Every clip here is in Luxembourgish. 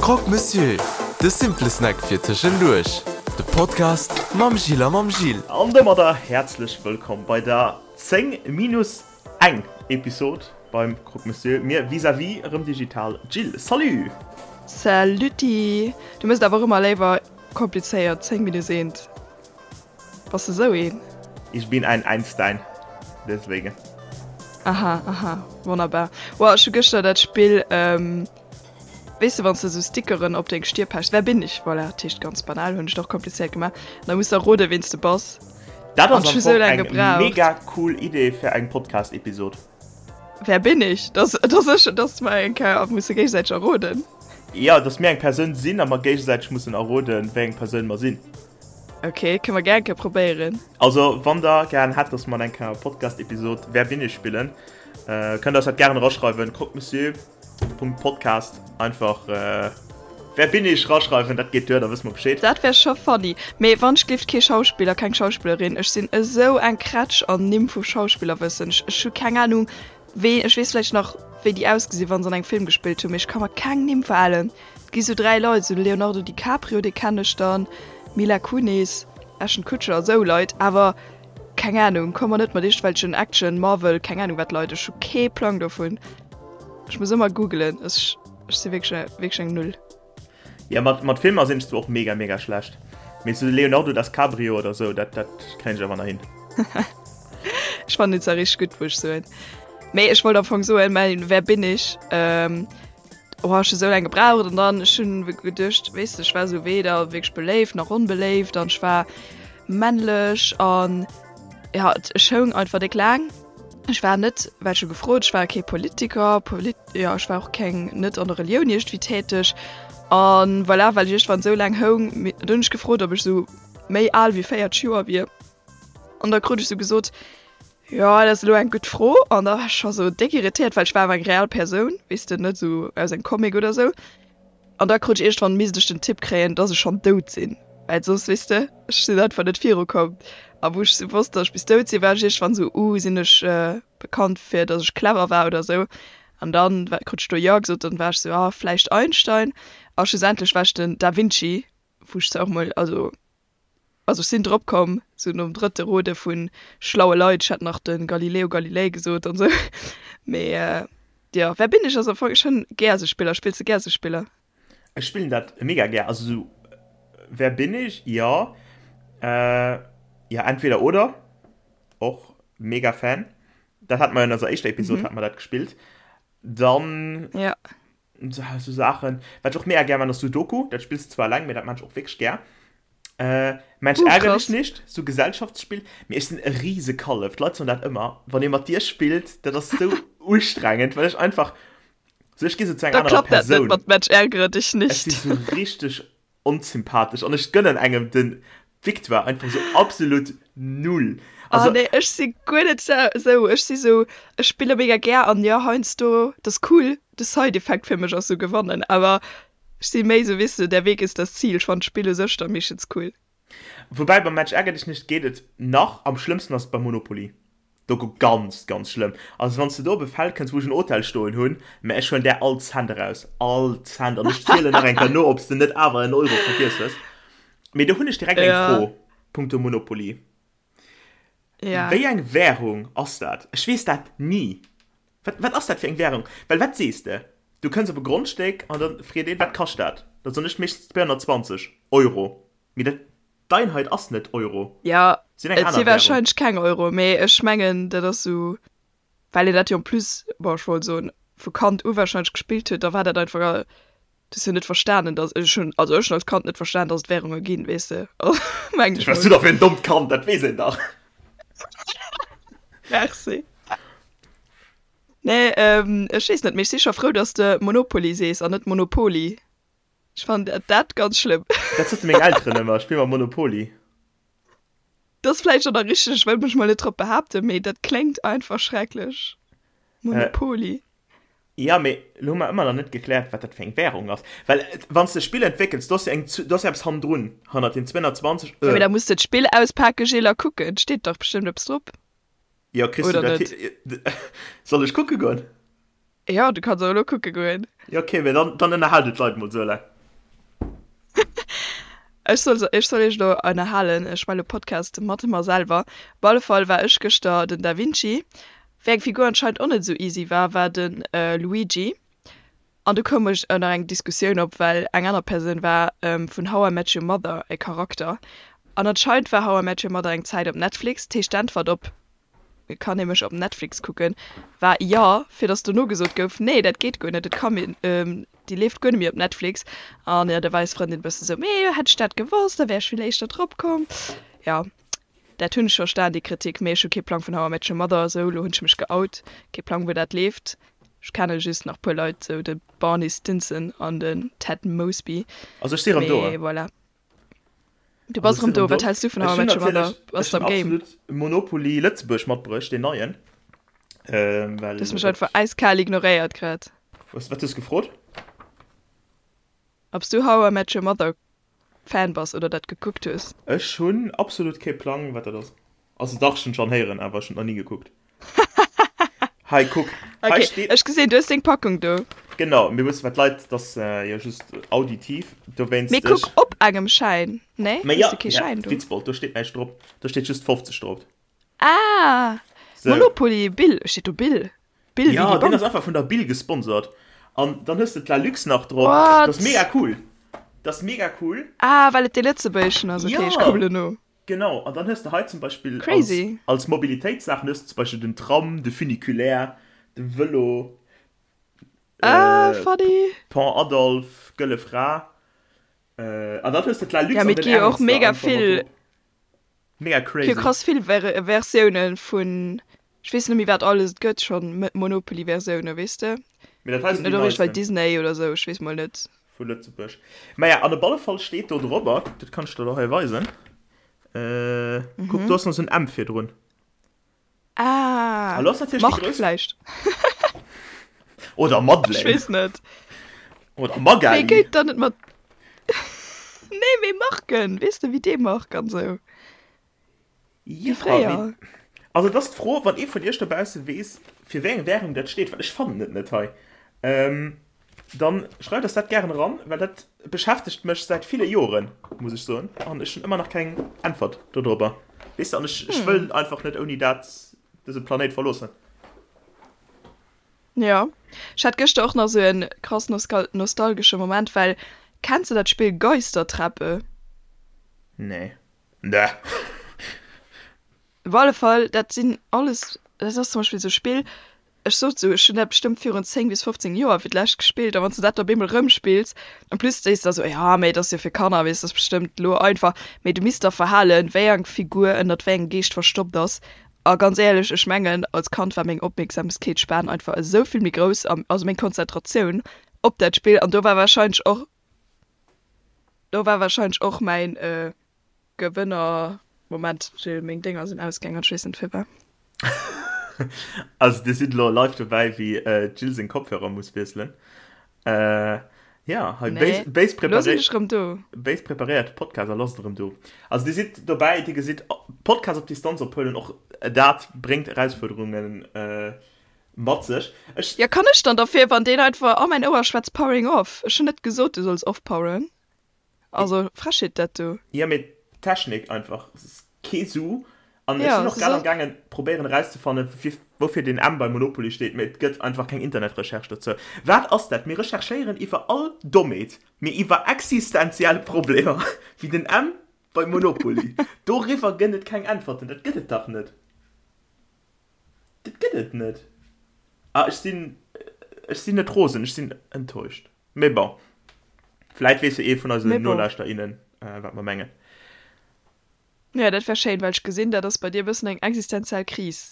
Croque Monsieur, de simple Snack fir tëschenduerch. De Podcast mam Gilles a mam Gil. An domadder häerzlech wëllkomm bei der 10 minus eng Episod beim Croque Monsieur. Mir vis-à-vis erëm digital. Jill, salut! Salutti! Du mëss et awer och ëmmer léiwer komplizéiert, 10 minus eent. Bass de sou een? Ich bin ein Einstein, deswegen. Aha, aha, wonnerbar. Wow, ech hu gëschter dat Spill, weess de, wann s de sou Stickeren op deng Stier pechs, Wer bin ich? Voilà, dat heescht ganz banal, hunn ech et och komplizéiert gemaach. An da muss de erroden, ween s de bass. Dat ass am Fong eng mega cool Idee fir eng Podcast-Episod. Wer bin ich? Dass, dass ech, dass mer eng Kéier musse géigesäiteg erroden. Jo, dass mir eng Persoun sinn a mer géigesäiteg mussen erroden, wéi eng Persoun mer sinn. Ok, kënne mer gär eng Kéier probéieren. Also wann der gären hätt, dass mer eng Kéier Podcast-Episod Wer bin ich spillen, kënnt der eis dat gären eraschreiwen, croquemessieur.podcast einfach Wer bin ich raschreiwen, dat geet duer, da wësse mer Bescheed. Dat wär scho funny. Mee wann ech gleeft kee Schauspiller, keng Schauspillerin. Ech sinn esou eng Krätsch an Nimm vu Schauspillerwëssen. Ech ech hu keng Ahnung wee, ech weess vläicht nach wéi déi ausgesinn wann se an engem Film gespillt hunn, mee ech ka mer keng Nimm verhalen. Et gi sou 3 Leit, sou de Leonardo DiCaprio, dee kennen ech dann, Mila Kunis, Ashton Kutcher, esou Leit, awer keng Ahnung, komm mer net mat iergendwelchen Action, Marvel, keng Ahnung wat Leit, ech hu kee Plang dovun. Ech muss ëmmer googelen, ech ech si wierklech wierklech eng Null. Jo, mat mat Filmer sinn ech zwar och mega mega schlecht, mee sou Leonardo DasCabrio oder sou, dat dat kréien ech awer nach hin. Ech fannen déi zwar richteg gutt, muss ech soen. Mee ech wollt am Fong soen, mäin Wer bin ich? Oh, ech hu sou laang gebraucht an dann ech hunn geduecht, weess de, ech war sou weder wierklech beléift nach onbeléift an ech war männlech an ja, ech houng einfach déck laang. Ech war net, well ech hu gefrot, ech war kee Politiker, Polit, jo ech war och keng, net an der Relioun iergendwéi täteg an voilà, well ech iergendwann sou laang houng, dunn hunn ech gefrot, ob ech sou méi al wéi 40 Joer wier an da krut ech sou gesot, Jo, dat ass elo eng gutt Fro. An da war ech scho sou déck irritéiert, well ech war awer eng real Persoun, weess de, net sou aus engem Comic oder sou. An da krut ech iergendwann, misst ech den Tipp kréien, dass ech schonn dout sinn, well soss, weess de, ech sinn einfach net virukomm. A wou ech sou wosst, dass ech bis dout sinn, war ech iergendwann sou, Uh, sinn ech bekannt fir, dass ech clever war oder sou? An dann krut ech do Jo gesot, dann war ech sou, Ah, vläicht Einstein. A schlussendlech war ech den Da Vinci, wou ech zwar och mol, also Also ech sinn drop komm, sou nom drëtte Rode vu schlaue Leit, ech hätt nach de Galileo Galilei gesot an sou, mee jo, Wer bin ich ass am Fong, ech hunn gär sou Spiller. Spills de gär sou Spiller? Ech spillen dat mega gär, also sou Wer bin ich, jo, jo entweder oder, och mega Fan, dat hate mer jo an eiser éischter Episod hate mer dat gespillt, dann Ja. Sou Saachen. Wat ech och mega gär man ass Sudoku. Dat spills de zwar eleng, mee dat man ech och wierklech gär. Äh, Mensch uh, ärger dich nicht, sou Gesellschaftsspill. Mee ech sinn e riese Kallef. D'Leit soen dat ëmmer. Wann ee mat dir spillt, dat ass sou ustrengend, well ech einfach sou ech gi sou zu enger anerer Persoun. Da klappt dat net mat Mensch ärgere dich nicht. Ech si sou richteg Onsympathesch an ech gënnen engem den Victoire einfach sou absolut null. Also. Oh nee, ech si guer net sou. Ech si sou, ech spille mega gär an jo heiansdo, dat ass cool, de Side-Effekt fir mech ass sou gewannen, awer ech si méi sou, weess de, der Weg ist das Ziel. Ech fannen d'Spill u sech da meeschtens cool. Woubäi beim Mensch ärger dich nicht geet et nach, am schlëmmsten ass et beim Monopoly. Do go ganz ganz schlëmm. Also wanns de do op e Feld kënns wou ech en Hotel stoen hunn, mä ech huelen där all Cent eraus, all Cent an ech zielen nach eng Kéier no ob s de net awer en Euro vergiess hues. Mee do hunn ech direkt eng Fro punkto Monopoly. Wéi eng Währung ass dat? Ech weess dat ni. Wat wat ass dat fir eng Währung? Well wat sees de? Du kënns op e Grondstéck an da freet een, wat kascht dat? Da soen ech meeschtens 220 Euro. Mee dat D'Einheit ass net Euro. Jo, et si warscheinlech keng Euro, mee ech mengen dat ass sou, well een dat jo en plus, bon ech wollt soen vu Kand u warscheinlech gespillt huet, da war dat einfach, du hues jo net verstanen, datt, ech hunn, also ech hunn als Kand net verstanen, datt et Währunge ginn, weess de, mengen ech mol. Wat bass du da fir en dommt Kand, dat weess een dach. Merci. Nee, ech weess net, mee ech si scho frou, datt s de Monopoly sees an net Monopoly. Ech fannen dat, dat ganz schlëmm. Dat sote meng Elteren ëmmer, spill mol Monopoly. Dat ass vläicht och nach richteg, ech wëll mech mol net drop behaapten, mee dat kléngt einfach schrecklech. Monopoly. Jo, mee elo hu mer ëmmer nach net gekläert, wat dat fir eng Währung ass. Well wann s de e Spill entwéckels, do ass jo eng, do ass jo eppes hannendrun, hannert den 220 Jo, mee da muss de d'Spill auspake Gilles a kucken, et steet dach bestëmmt eppes drop. Jo, kriss du Oder dat net? hi-? Soll ech kucke goen? Jo, du kanns och elo kucke goen. Jo, okay, mee dann, dann ënnerhal du d'Leit mol esou laang. Ech soll ech soll iech elo ënnerhalen, ech maache lo Podcast mat mer selwer. Op alle Fall war ech gëschter den Da Vinci. Wéi eng Figur anscheinend och net esou easy war, war de Luigi. An du koum ech nach eng Diskussioun op, well eng aner Persoun war vun How I Met Your Mother e Charakter. An anscheinend war How I Met Your Mother eng Zäit op Netflix. Dat heescht d'Äntwert op Kann ee mech op Netflix kucken? war jo, fir datt dono gesot gouf, Nee, dat geet guer net, et kann een, déi leeft guer net méi op Netflix. An jo, da war eis Frëndin e bësse sou, Mee hätt ech dat gewosst, da wär ech vill éischter drop komm. Jo. Dat hunn ech verstan, déi Kritik, mee ech hu kee Plang vun How I Met Your Mother, sou elo hunn ech mech geout, kee Plang wou dat leeft. Ech kenne just nach puer Leit, sou de Barney Stinson an den Ted Mosby, Also ech si rëm do. mee voilà. Du bass Also ech rëm si rëm do, do. wat häls du vun Ech How I hunn Met Your Mother? natierlech, Bass ech de hunn am Game? absolut Monopoly Lëtzebuerg matbruecht, deen neien, Du well hues mech dat, einfach äiskal ignoréiert grad. was, wat hues gefrot? Ob s du How I Met Your Mother Fan bass oder dat gekuckt hues. Ech hunn absolut kee Plang wat dat ass. Also dach ech hunn schonn héieren awer ech hunn et nach ni gekuckt. Hei kuck, hei Ok, steet. ech gesinn du hues deng Packung do. Genau, mir wëssen wat d'Leit, et ass jo just auditiv, dowéinst Mee kuck ech. op engem Schäin, nee? Mee Hues jo, de kee ja, Schäin do? Witzbold, do steet näischt drop, do steet just 50 drop. Ah! Sou. Monopoly, Bill, steet do Bill? Bill wéi Ja, déi deen ass Bank? einfach vun der Bill gesponsert. An dann hues de d'Lalux nach drop. Dat ass What? mega cool. Dat ass mega cool. Ah, well et dee Lëtzebuergeschen ass, ok, ech Ja! kucken elo no. Genau, an dann hues de hei zum Beispill als, Crazy. als Mobilitéitssaachen hues de zum Beispill den Tram, de Funiculaire, de Vëlo, Ah, äh, funny. Pont Adolphe, Gëlle Fra. Äh, an dann hues de Ja, d'Lalux an mee et den gi jo och Ernster mega einfach mat vill drop. Mega Gi crazy. krass vill Ver Versiounen vun, ech weess net méi wat alles et gëtt schonn, Monopoly Versiounen, weess de? Mee dat hei Ginn sinn et déi net och iergendwei neisten Disney oder sou, ech weess mol net. vu Lëtzebuerg. Maja, an op alle Fall steet do drobber, dat kann ech der lo hei weisen, äh, kuck, do ass nach sou en M virdrun. Ah, A lo ass natierlech déi Marc grouss. vläicht? Oder Ech Madeleine. weess net. Oder Wee Magali. géint dann net mat. Nee, mee Marken, weess de, wéi dee Marc an sou. Wéi Ja, fréier. mee also et ass d'Fro, wann ee vun iech dobausse weess, fir wéi eng Währung dat steet, well ech fannen et net hei, ähm, dann schreift eis dat gären eran, well dat beschäftegt mech säit ville Joren, muss ech soen, an ech hunn ëmmer nach keng Äntwert dodrobber, weess de, an ech, ech wëll einfach net ouni dat dëse Planéit verloossen. Jo, ech hat gëschter och nach sou en krass nostalgesche Moment, well kenns de dat Spill Geistertreppe? Nee. Nee. Op alle Fall, dat sinn alles, dat ass zum Beispill esou e Spill, ech sot esou, ech hunn dat bestëmmt virun 10 bis 15 Joer fir d'lescht gespillt, a wann s de dat da op eemol erëmspills, en plus sees de da sou, jo, mee et ass jo fir Kanner, weess, dat ass bestëmmt elo einfach, mee du misst der verhalen, wéi eng Figur ënnert wéi engem Geescht verstoppt ass. A ganz éierlech, ech mengen, als Kand war meng Opmierksamkeetsspan einfach esou vill méi grouss, also meng Konzentratioun op dat Spill, an do war warscheinlech och, do war warscheinlech och mäin Gewënner, Moment Jill, meng Dénger sinn ausgaang an ech weess net firwat. Also dir sidd elo live dobäi wéi d'Jill seng Kopfhörer muss wiesselen. Jo, hei Nee, béis elo sinn preparéiert, ech rëm do. béis preparéiert Podcast a lass et erëm do. Also dir sidd dobäi, dir gesitt Podcast op Distanz ophuelen, och dat bréngt Erausfuerderunge mat sech. Ech. Jo, kann ech dann derfir, wann deen einfach a mäin Ouer schwätzt, powering off? Ech hunn net gesot, du solls offpoweren. Also Frechheet dat do. Jo mee d'Technik einfach, es ass kee Su an ech Ja, sinn och se grad am soll. gaangen probéieren erauszefannen fir woufir den M bei Monopoly steet, mee et gëtt einfach keng Internetrecherche dozou. Wat ass dat? Mir recherchéieren iwwer all Dommheet, mee iwwer existenziell Problemer wéi den M bei Monopoly, doriwwer gënn et keng Äntwerten. Dat gëtt et dach net. Dat gëtt et net. Ah ech sinn, ech sinn net rosen, ech sinn enttäuscht. Mee bon, vläit weess jo ee vun eisen Mee bon. Nolauschter, innen, wat mer mengen. Jo, dat wär schéin, well ech gesinn, dat ass bei dir e bëssen eng existenziell Kris.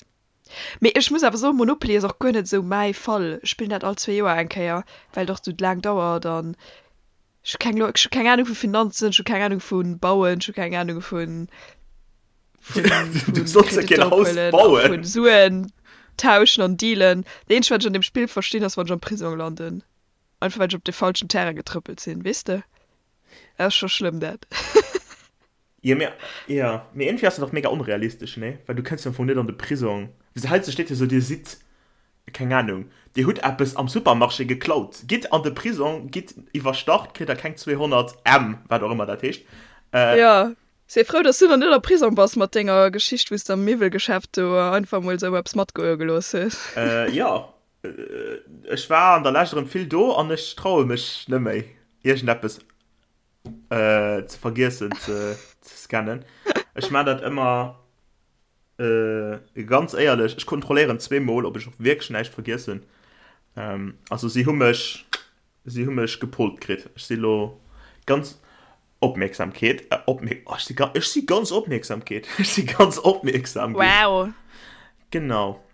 Mee ech muss awer soen, Monopoly ass och guer net esou mäi Fall. Ech spillen dat all zwee Joer eng Kéier, well et och esou laang dauert an ech hu keng Lo, ech hu keng Anung vu Finanzen, ech hu keng Anung vu Bauen, ech hu keng Anung vu, vu, Du vu solls jo keen Kreditter Haus ophuelen a bauen. vu Suen tauschen an dealen. Dat eenzegt, wat ech an deem Spill verstinn, ass, wann ech am Prisong landen. Einfach well ech op de falschen Terrain getrëppelt sinn, weess de? Dat ass scho schlëmm dat. Jo mee, jo, mee iergendwéi ass dat och mega onrealistesch, nee? Well du kënns jo am Fong net an de Prisong. Wéi heiansdo steet jo sou, dir sidd, keng Anung, dir hutt eppes am Supermarché geklaut, gitt an de Prisong, gitt iwwerstart, kritt der keng 200 M, wat och ëmmer dat heescht. Jo, si frou, dass du nach net am Prisong bass mat denger Geschicht, wou s de am Miwwelgeschäft do einfach mol esou eppes matgoe gelooss hues. Jo, ech war an der Lescht erëm vill do an ech traue mech net méi, iergendeppes ze vergiessen ze scannen. Ech maan dat ëmmer ganz éierlech, ech kontrolléieren zweemol, ob ech och wierklech näischt vergiess hunn. Also si hu mech, si hu mech gepollt kritt. Ech si lo ganz Opmierksamkeet, opmierk, oh, ech si, ech si ganz Opmierksamkeet, ech si ganz opmierksam ginn. Wow. Genau.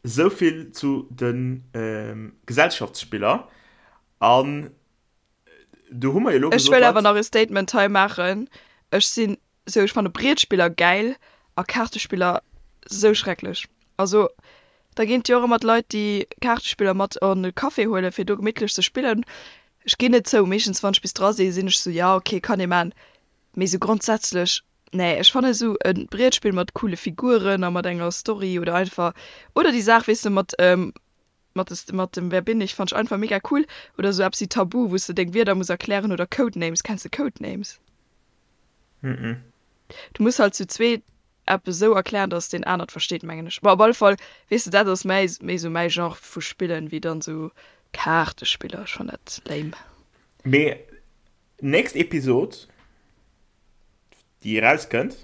Souvill zu de Gesellschaftsspiller. An do hu mer jo lo gesot. Ech wëll awer nach e Statement hei maachen. Ech sinn sou, ech fanne Brietspiller gäil a Kaartespiller sou schrecklech. Also da ginn et jo och ëmmer d'Leit, déi Kaartespiller mat an e Café huelen, fir do gemittlech ze spillen. Ech ginn net zou, meeschtens wann ech bis dra sinn, sinn ech sou, jo ok, kann ee man. Mee sou grondsätzlech, nee, ech fanne sou e Brietspill mat coole Figuren a mat enger Story oder einfach, oder déi Saach, weess de, mat Mat des mat dem Wer bin ich fannt ech einfach mega cool. Oder sou eppes wéi Tabu, wous de deng Wierder muss erklären oder Codenames. Kenns de Codenames? Mhm. Du muss halt zu zweet eppes sou erklären, dass deen anert versteet, mengen ech. Bon, op alle Fall, weess de, dat ass mäi méi sou mäi Genre vu Spillen, wéi dann sou Kaartespiller. Ech fann dat lame. Mee nächst Episod, déi erauskënnt,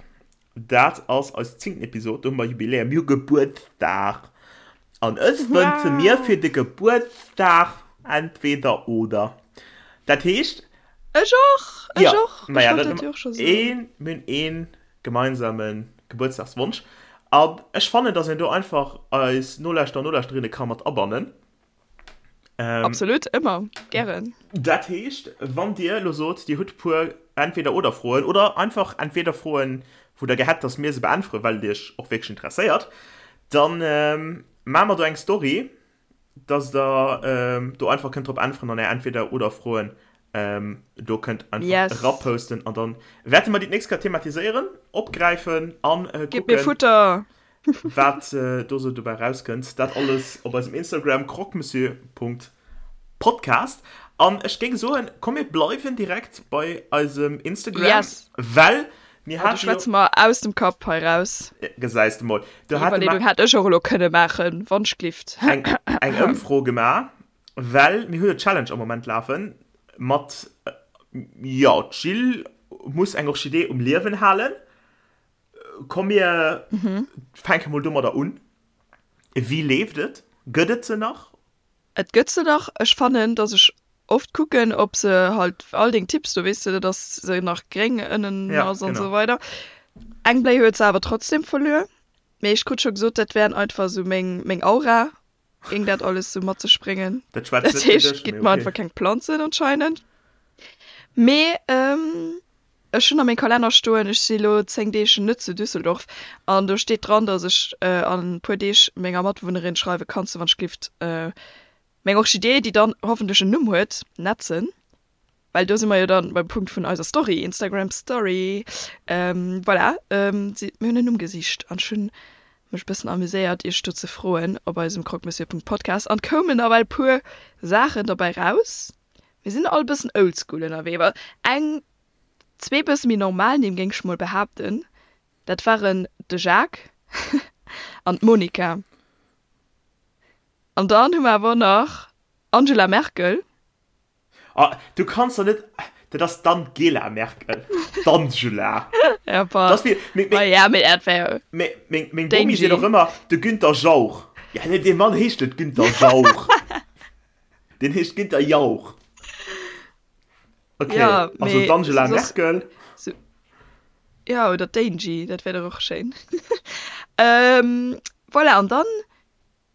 dat ass eis zéngten Episod, do hu mer Jubiläum, mir hu Gebuertsdag an ech wënsche mir fir de Gebuertsdag entweder oder. Dat heescht. Ech och, ech och, ech wollt dat jo och scho soen. Een, mir hunn ee gemeinsame Gebuertsdagswonsch an ech fannen, datt een do einfach eis Nolauschterer an Nolauschterinnen ka mat abannen. Ähm, Absolut, ëmmer, gären. Dat heescht, wann Dir elo sot, Dir hutt e puer Entweder-oder-Froen oder einfach Entweder-Froen, wou Der gär hätt, dass mir se beäntweren, well et Iech och wierklech interesséiert, dann ähm, maache mer do eng Story, dass Der ähm, do einfach kënnt drop äntweren an Är Entweder-oder-Froen ähm, do kënnt einfach yes. eraposten an dann wäerte mer déi d'nächst Kéier thematiséieren, opgräifen an äh, kucken. Gitt mir Futter! Wat do sou dobäi rauskënnt, dat alles op eisem Instagram croquemessieur.podcast. An ech géing soen, komm mir bleiwen direkt bei eisem Instagram, yes. well mir haten. Do schwätze mer aus dem Kapp hei raus. Gesäis de mol. Do hate mer. Déi Iwwerleedung hätt ech och elo kënne maachen, wannschglift. Eng, eng Ëmfro gemaach, well mir hunn e Challenge am Moment lafen mat, jo, d'Jill muss eng Orchidee um Liewen halen. Komm mir fänke mol domadder un. Wéi leeft et? Gëtt et se nach? Et gëtt se nach. Ech fannen, dass ech oft kucken, ob se halt all deng Tipps do, weess de, dass se nach gréng ënnen ass an esou weider. Eng Bléi huet se awer trotzdem verluer. Mee ech krut scho gesot, dat wären einfach esou meng, meng Aura géing dat alles sou mat sech bréngen. Dat schwätzt net fir dech, mee okay. Mer einfach keng Planzen anscheinend. Mee ähm, ech hunn a meng Kalenner stoen, ech si lo 10 Deeg net zu Düsseldorf an do steet dran, dass ech äh, an puer Deeg menger Matbewunnerin schreiwe kanns du wann ech glift äh, meng Orchidee, déi dann hoffentlech en Numm huet, netzen. Well do si mer jo dann beim Punkt vun eiser Story, Instagram Story. Ähm, voilà, ähm, si, mir hunn en Numm gesicht an ech hunn mech e bëssen amuséiert, iech do ze froen op eisem croquemessieur.podcast an koumen nawell puer Saachen derbäi raus. Mir sinn all e bëssen oldschool ënnerwee, well eng, zwee bësse méi normal Nimm, géing ech mol behaapten, dat waren de Jacques an d'Monica. An dann hu mer awer och nach Angela Merkel. Ah, du kanns doch net, dat ass d'Angela Merkel, d'Angela. Ja, bah. Das wie, meng, meng, ah, ja, mee dat wär meng, meng, meng Bomi seet och ëmmer, de Günther Jauch. Ja, nee, dee Mann heescht net Günther Jauch. Deen heescht Günther Jauch. Okay, ja, also d'Angela Merkel. So, ja, oder d'Angie, dat wär doch och schéin. ähm, voilà, an dann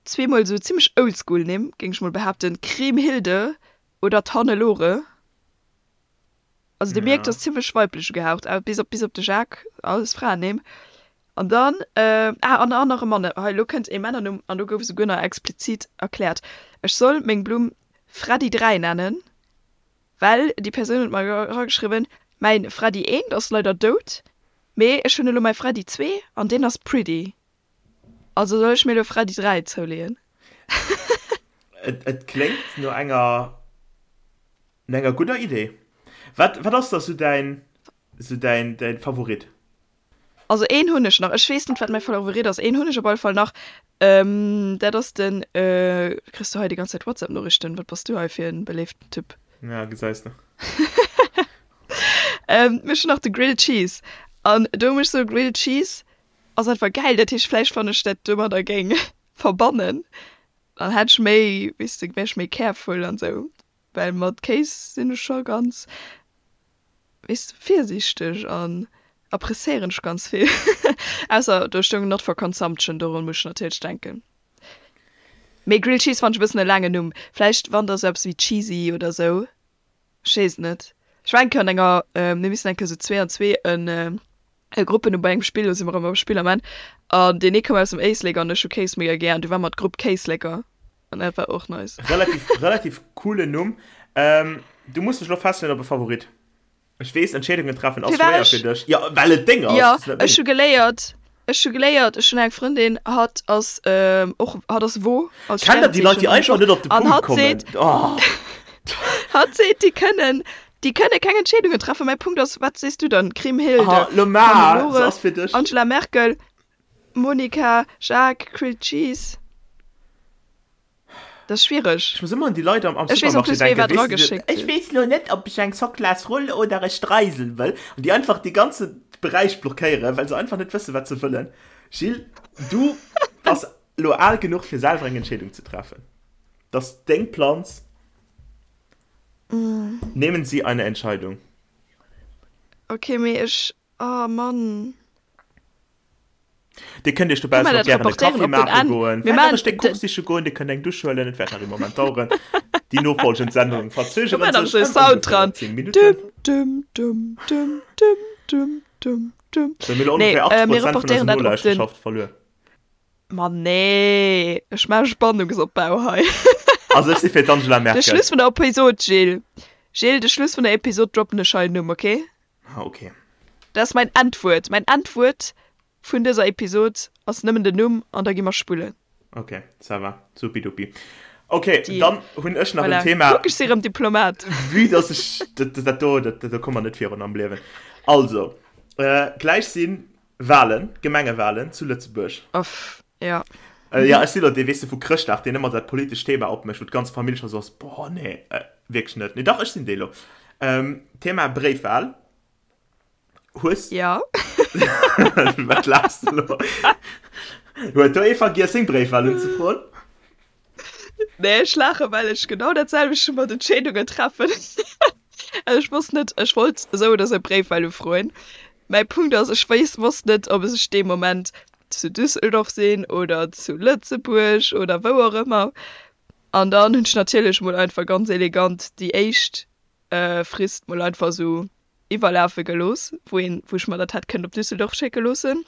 Zweemol sou zimmlech oldschool Nimm, géing ech mol behaapten, Kriemhilde oder d'Hannelore. Also dir mierkt, ass zimmlech weiblech ugehaucht, bis op bis op de Jacques, alles Fraennimm. An dann, ah, an an nach e Mann, hei elo kënnt ee Männernumm an do gouf esouguer nach explizit erkläert, ech soll meng Blumm Freddy 3 nennen, well déi Persoun huet mer erageschriwwen, mäin Freddy 1 ass leider dout, mee ech hunn elo mäi Freddy 2 an deen ass pretty. Also soll ech mir elo Freddy 3 zouleeën? Et kléngt no enger no enger gudder Idee. Wat wat ass da sou däin. Sou däin, däin Favorit? Also een hunn ech nach. Ech weess net, wat mäi Favorit ass. Een hunn ech op alle Fall nach. Dat ass den, kriss du hei déi ganz Zäit WhatsApp-Noriichten? Wat bass du hei fir en beléiften Typ? Ja, gesäis de. Ech hunn nach de Grilled Cheese. An do muss ech soen, Grilled Cheese ass einfach gäil. Dat heescht, vläicht wann ech dat domadder géing verbannen, dann hätt ech méi, weess de, wär ech méi careful an esou. Well mat Kéis sinn ech scho ganz, weess de, virsiichteg an appreciéieren ech ganz vill. Ausser do stoung not for consumption, dorun muss ech natierlech denken. Mee Grilled Cheese fannen ech e bëssen e laangen Numm. Vläicht wann da sou eppes wéi Cheesy oder sou, ech weess et net. Ech war eng Kéier an enger, mir missen eng Kéier sou zwee an zwee en e Gruppen hu bei engem Spill, lo si mer erëm beim Spill am Enn, an deen ee koum aus dem Éislek an ech hu Kéis mega gär an du war mer d'Grupp Kéisleker an dat war och nice. Relativ, relativ coolen Numm. Ähm, du muss dech lo festleeën op e Favorit. Ech weess, Entscheedungen treffen ass schwéier fir dech. Jo, well et deng ass. Jo, ech hu geléiert, ech hu geléiert, ech hunn eng Frëndin, hatt ass och, hatt ass Wo als Kennt der déi Leit, déi einfach net op de Punkt kommen? Oh. Hatt seet, déi kënnen, déi kënne keng Entscheedungen treffen. Mäi Punkt ass, wat sees du dann? Kriemhilde, Hannelore, Angela Merkel, Monika, Jacques, Grilled Cheese. Dat ass schwiereg. Ech muss ëmmer un déi Leit am, am Ech weess en Supermarché plus, wéi denken, wat weess de, drageschéckt ech huet. weess lo net, ob ech eng Soclasroll oder e Streisel wëll. An déi einfach dee ganze Beräich blockéieren, well se einfach net wëssen, wat se wëllen. Gilles, du bass lo al genuch, fir selwer eng Entscheedung ze treffen. Dat ass deng Planz. Nehmen Sie eine Entscheidung. Okay, mee ech, oh Mann. Dir kënnt Iech dobaussen och gären e Kaffi maache goen, vläicht nach e Stéck Kuch siche goen, Dir kënnt eng Dusch huelen, et wäert nach ee Moment daueren. Déi nofolgend Sendungen verzögeren sech ëm ongeféier 10 Minutten. Sou, mir hu ongeféier 80 Prozent vun eiser Nolauschterschaft verluer. Ma nee, ech maache Spannungsopbau hei. Also ech si fir d'Angela Merkel. De Schluss vun der Episod, Gilles. Gilles, de Schluss vun der Episod droppen ech hei en Numm, okay? Ah, okay. Dat ass mäin Endwuert. Mäin Endwuert vun dëser Episod ass nëmmen den Numm an da gi mer spullen. Ok, ça va. Supidupi. Ok, Deal. dann hunn ech nach en Voilà. Thema. Kuck, ech si rëm Diplomat. Vue dass ech dat, dat do, dat, do komme mer net virun am Liewen. Also, äh, gläich si Wahlen, Gemengewahlen zu Lëtzebuerg. Uff, ja. Äh, ja, ech si lo dee, weess de, vu Chrëschtdag, deen ëmmer dat politescht Thema opmécht, wou d'ganz Famill scho sou ass, boah, nee, äh, wierklech net. Nee, dach, ech sinn dee lo. Ähm, Thema Bréifwahl. Hues. Ja. Wat laachs de lo? Huet do ee vergiess, seng Bréifwahl unzefroen? Nee, ech laachen, well ech genau dat selwecht mat Entscheedungen treffen. Also ech wosst net, ech wollt esou oder esou Bréifwahl ufroen. Mäi Punkt ass, ech weess, wosst net, ob ech dee Moment zu Düsseldorf sinn oder zu Lëtzebuerg oder wou och ëmmer. An dann hunn ech natierlech mol einfach ganz elegant déi éischt Frist mol einfach esou iwwerlafe gelooss, wou een, wou ech mer dat hätt kënnen op Düsseldorf schécke loossen.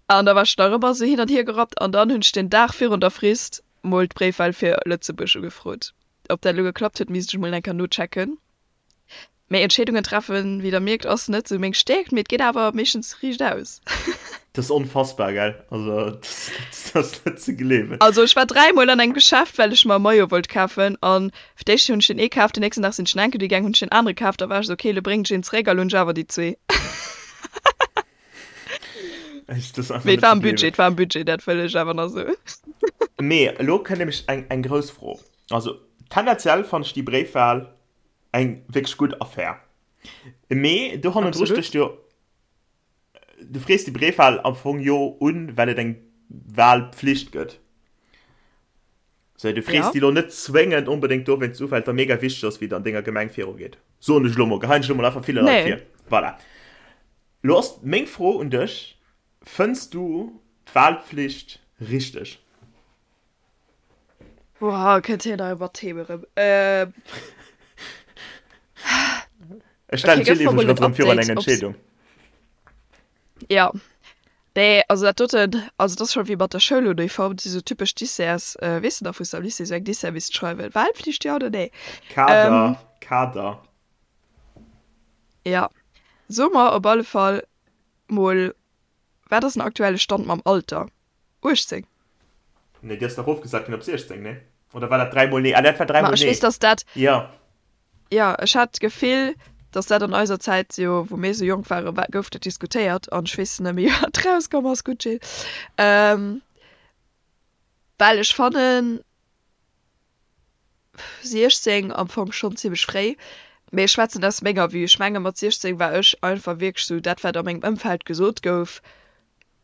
An da war ech nach ëmmer esou hin an hier gerappt an dann hunn ech den Dag virun der Frist mol d'Bréifwahl fir Lëtzebuerg ugefrot. Ob dat elo geklappt huet, misst ech mol eng Kéier nochecken. Mee Entscheedungen treffen, wéi der mierkt, ass net sou meng Stäerkt, mee et geet awer meeschtens riicht aus. Dat ass onfassbar, gell? Also, dat ass net ze gleewen. Also ech war dräimol an engem Geschäft, well ech mer e Maillot wollt kafen an fir d'éischt hunn ech deen ee kaf, den nächsten Dag sinn ech en enke gaang, hunn ech deen anere kaf, da war ech sou, ok, lo bréngen ech een zeréck a lo hunn ech awer déi zwee. Mee et war am Budget, et war am Budget, dat wëll ech awer nach soen. Mee elo kënnt nämlech eng, eng grouss Fro. Also tendenziell fannen ech déi Bréifwahl eng wierklech gutt Affär. Mee do hannendru stécht jo, du frees déi Bréifwahl am Fong jo un, well et eng Wahlpflicht gëtt. Sou, du frees déi lo net zwéngend onbedéngt dowéinst u, well et der mega wichteg ass, wéi et an denger Gemeng virugeet. Soen ech elo mol, geheien ech elo mol einfach ville Leit vir. Voilà. Lo ass meng Fro un dech, Fënns du d'Wahlpflicht richteg? Boah, kënnt hien hei mat Themen erëm. Ähm. Ech stellen Okay, gëff d'Jill mer mol iwwregens en erëm virun eng Update, ob's. Entscheedung. Ja. Nee, also dat doten, also dat ass scho wéi mat der Schouluniform, dat si sou typesch Desserts, weess de nach, wou s de am Lycée sou eng Dessert misst schreiwen, Wahlpflicht, ja oder nee? Kader, Ähm. Kader. Ja. So mer op alle Fall mol, wat ass den aktuelle Stand mam Alter? 18? Nee, déi ass dach erofgesat ginn op 16, nee? Oder war dat dräimol nee? Ah, dat war Ma dräimol ech nee. weess, dass dat, Jo. jo, ech hat d'Gefill. Dass dat an eiser Zäit jo, wou mir esou jonk waren, war, gouf dat diskutéiert an ech weess net méi, wat rauskomm ass. Gutt, Jill. Well ech fannen 16 am Fong schonn zimmlech fréi, mee ech schwätzen aus menger Vue. Ech menge mat 16 war ech einfach wierklech esou, dat wat a mengem Ëmfeld gesot gouf,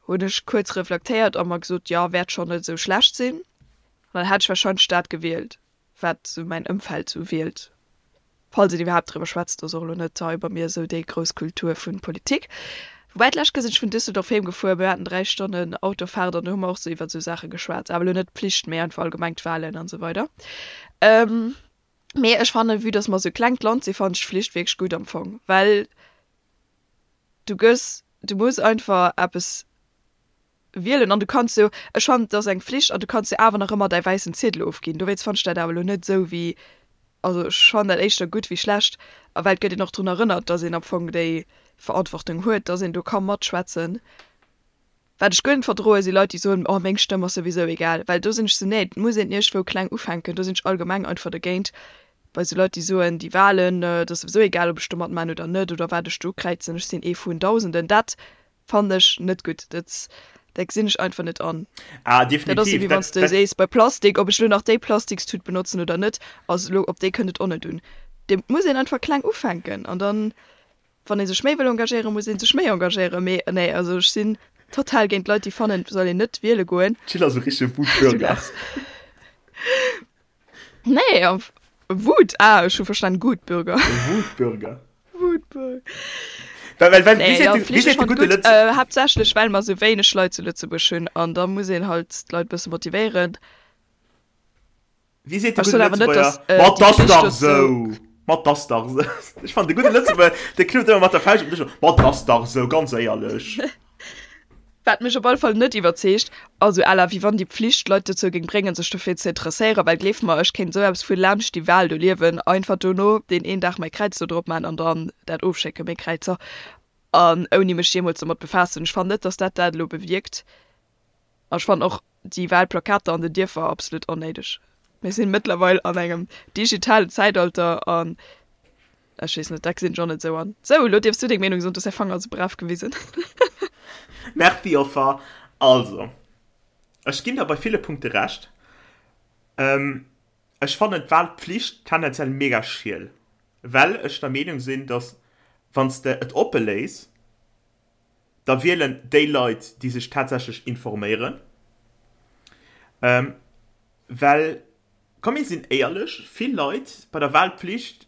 hunn ech kuerz reflektéiert a mer gesot, jo, wäert schonn net esou schlecht sinn. An dann hätt ech warscheinlech dat gewielt. wat sou mäin Ëmfeld sou wielt, falls een iwwerhaapt driwwer schwätzt, ass och elo net hei bei mir esou déi grouss Kultur vun Politik. Woubäi d'lescht Kéier sinn ech vun Düsseldorf heem gefuer, mir haten 3 Stonnen Autofahrt an do hu mer och sou iwwert sou Saache geschwat, awer elo net d'Pflicht, mee einfach allgemeng d'Wahlen an esou weider. Mee ech fannen, vue dass mer sou klengt Land sinn, fannen ech d'Pflicht wierklech gutt am Fong, well du gëss, du muss einfach eppes Wielen an du kanns jo, ech fannen et ass eng Flicht an du kanns jo awer nach ëmmer däi wäissen Ziedel ofginn, dowéinst fannen ech dat awer elo net esou wéi, also ech fannen dat éischter gutt wéi schlecht a well et gëtt een och drun erënnert, dass een am Fong déi Verantwortung huet, dass een do ka matschwätzen. Wat ech guer net verdroen, si Leit déi soen, oh meng Stëmm ass souwisou egal, well do sinn ech sou, nee et muss een iergendwou kleng ufänken, do sinn ech allgemeng einfach dergéint, bei sou Leit déi soen, déi Wahlen, et ass souwisou egal ob ech do matman oder net oder wat ech do ukräizen, ech sinn ee vun Dausenden, dat Fannen ech net gutt. Dat dat gesinn ech einfach net an. Ah, definitiv. Dat ass esou wéi wann s de sees bei Plastik, ob ech elo nach déi Plastikstut benotzen oder net, ass elo op déi kënnt et och net un. Et muss een einfach kleng ufänken an dann, wann ee sech méi wëll engagéieren, muss ee sech méi engagéieren. Mee nee, also ech sinn total géint Leit déi fannen, et soll een net wiele goen. D'Jill ass e richtege Wutbürger. Nee, Wut, ah, ech hu verstan Gutbürger. Wutbürger. Wutbürger. Well, well, well, nee, wie seet ja, de, wie seet de gudde Lëtz... Äh, haaptsächlech, well mer sou wéineg Leit zu Lëtzebuerg hunn an da muss een halt d'Leit bësse motivéieren. Wie seet de gudde Lëtzebuerger? Äh, Ma 't ass dach sou! Ma 't ass dach sou! Ech fannen, de gudde Lëtzebuerger, dee knuppt ëmmer mat der Fauscht op den Dësch. Ma 't ass dach sou, ganz éierlech. Wat mech op alle Fall net iwwerzeegt, also à la wéi wann déi Pflicht d'Leit dozou géing bréngen sech dofir ze interesséieren, well gleeft mer, ech kéint esou eppes vu laanscht déi Wahl do liewen, einfach dono deen een Dag mäi Kräiz do drop man an dann dat ofschécken, meng Kräizer, an ouni mech jeemools domat befaassen. Ech fannen net, dass dat dat elo bewierkt. An ech fannen och déi Wahlplakater an den Dierfer absolut onnéideg. Mir sinn mëttlerweil an engem digitalen Zäitalter an Ech weess net, dat gesinn ech och net esou an. Sou, elo dierfs du deng Meenung soen, du hues däi Fanger esou brav gewisen. Merci Joffer. Also, ech ginn der bei ville Punkte Recht. Ech fannen d'Wahlpflicht tendenziell mega schiel, well ech der Meenung sinn, dass wann s de et oppe léiss, da wielen déi Leit, déi sech tatsächlech informéieren, well Komm mir sinn éierlech, vill Leit bei der Wahlpflicht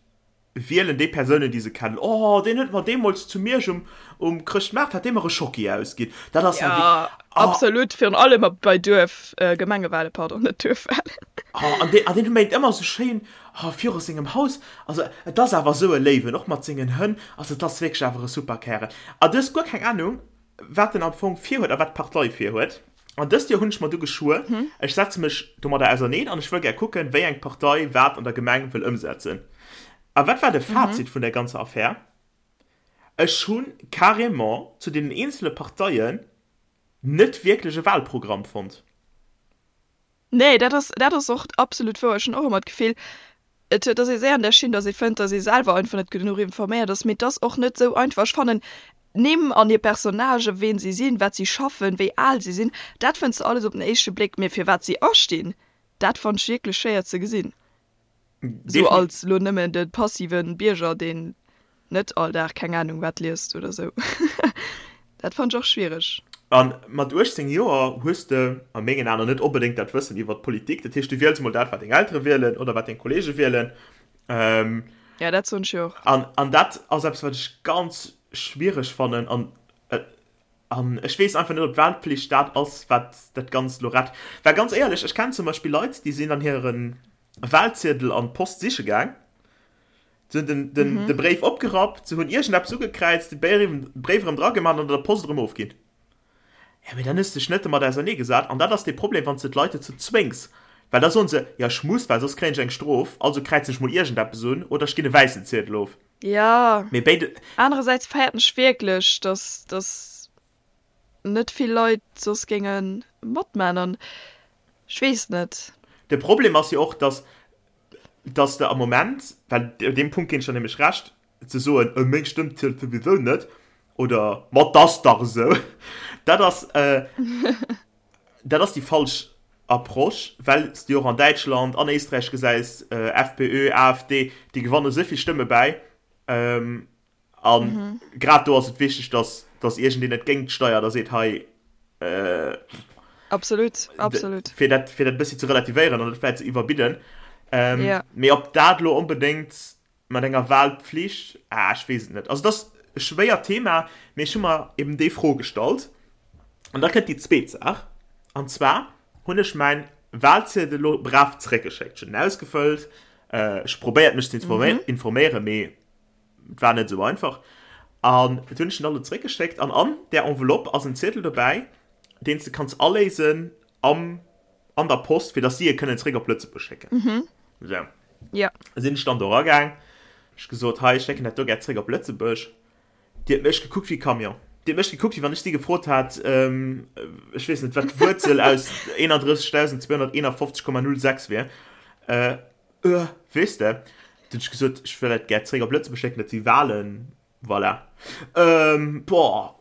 wielen déi Persounen déi se kennen. Oh deen huet mer deemools zu Miersch um um Chrëschtmaart hat dee mer e Schocki ausginn. Dat ass ja wierk oh. Absolut, virun allem bei Duerf Gemengewahlen, pardon, net Duerfwahlen. Oh an deen an deen méint ëmmer esou schéin oh viru sengem Haus, also et ass awer esou e Léiwen, och mat sengen Hënn, also et ass wierklech awer e super Kärel. A du hues guer keng Ahnung wat en am Fong virhuet a wat d'Partei virhuet. An dëst Joer hunn ech mer du geschwuer, ech setze mech domadder auserneen an ech wëll gär kucken, wéi eng Partei wat an der Gemeng wëll ëmsetzen. A wat war de Fazit vun där ganzer Affär? Ech hu carrément zu deenen eenzele Parteien net wierklech e Wahlprogramm fonnt. Nee, dat ass, dat ass och absolut wouer. Ech hunn och ëmmer d'Gefill, et huet, ass ee séier an där Schinn, datt ee fënnt, datt ee selwer einfach net genuch informéiert ass. Mee et ass och net esou einfach. Ech fannen, d'Nimm an hir Personnagen, ween si sinn, wat si schaffen, wéi al si sinn, dat fënns de alles op den éischte Bléck. Mee fir wat si astinn, dat fannt ech wierklech schwéier ze gesinn. Sou als lo nëmmen de passive Bierger, deen net all Dag keng Ahnung wat liest oder sou. Dat fannt ech och schwiereg. A mat 18 Joer hues de a mengen Aen net onbedéngt dat Wëssen iwwert d'Politik. Dat heescht, du wiels mol dat, wat deng Eltere wielen oder wat deng Kollege wielen. Ja, dat soen ech jo och. An, an dat ass eppes, wat ech ganz schwiereg fannen. An, an ech weess einfach net, ob d'Wahlpflicht dat ass, wat dat Ganzt elo rett. Well ganz éierlech, ech kennen zum Beispill Leit, déi sinn an hire Wahlziedel an d'Post siche gaang. Se hunn den, den, mhm. de Bréif opgerappt, se hunn iergendeppes ugekräizt, de Bréif erëm dragemaach an an der Post erëm ofginn. Ja, mee dann hues de dech net domat auserneegesat. An dat ass de Problem, wann s de d'Leit dozou zwéngs. Well da soen se, ja ech muss, well soss kréien ech eng Strof, also kräizen ech mol iergendeppes un oder ech ginn e wäissen Ziedel of. Ja. Mee béide. Anerersäits fäerten ech wierklech, dass, dass net vill Leit soss géinge matman an ech weess net. De Problem ass jo och, dass, dass de am Moment, well op deem Punkt ginn ech der nämlech Recht. ze soen, äh, meng Stëmm zielt souwisou net oder ma 't ass dach esou, dat ass, dat ass déi falsch Approche, well s de jo och an Däitschland, an Éisträich gesäis, FPÖ, AfD, déi gewanne esou vill Stëmme bäi. A grad do ass et wichteg, datt, datt iergendeen et géint steiert a seet, hei, Absolut, absolut. Fir dat, fir dat e bëssi ze relativéieren an net vläicht ze iwwerbidden. Mee ob dat elo onbedéngt Mat enger Wahlpflicht? Ah, ech weess et net. Also, et ass e schwéiert Thema, mee ech hu mer eben déi Fro gestallt. An da kënnt déi zweet Saach, an zwar hunn ech mäin Wahlziedel elo brav zeréckgeschéckt. Ech hunn en ausgefëllt, ech hu probéiert, mech ze informéieren, mee et war net esou einfach. An et hunn ech en dann elo zeréckgeschéckt an an där Enveloppe ass en Ziedel dobäi, deen s de kanns aléisen am an der Post, fir dass si e kënnen zréck op Lëtzebuerg schécken. Mhm. Sou. Ja. Sinn ech dann do eragaang, ech gesot, hei, ech schécken dat do gär zréck op Lëtzebuerg. Déi huet mech gekuckt wéi e Camion. Déi huet mech gekuckt, wéi wann ech si gefrot hat, ähm, ech weess net, wat d'Wuerzel aus 31.251,06 wier. Äh, äh, weess de? Dunn hunn ech gesot, ech wëll dat gär zréck op Lëtzebuerg schécken, dat si Wahlen. Voilà. Ähm, boah,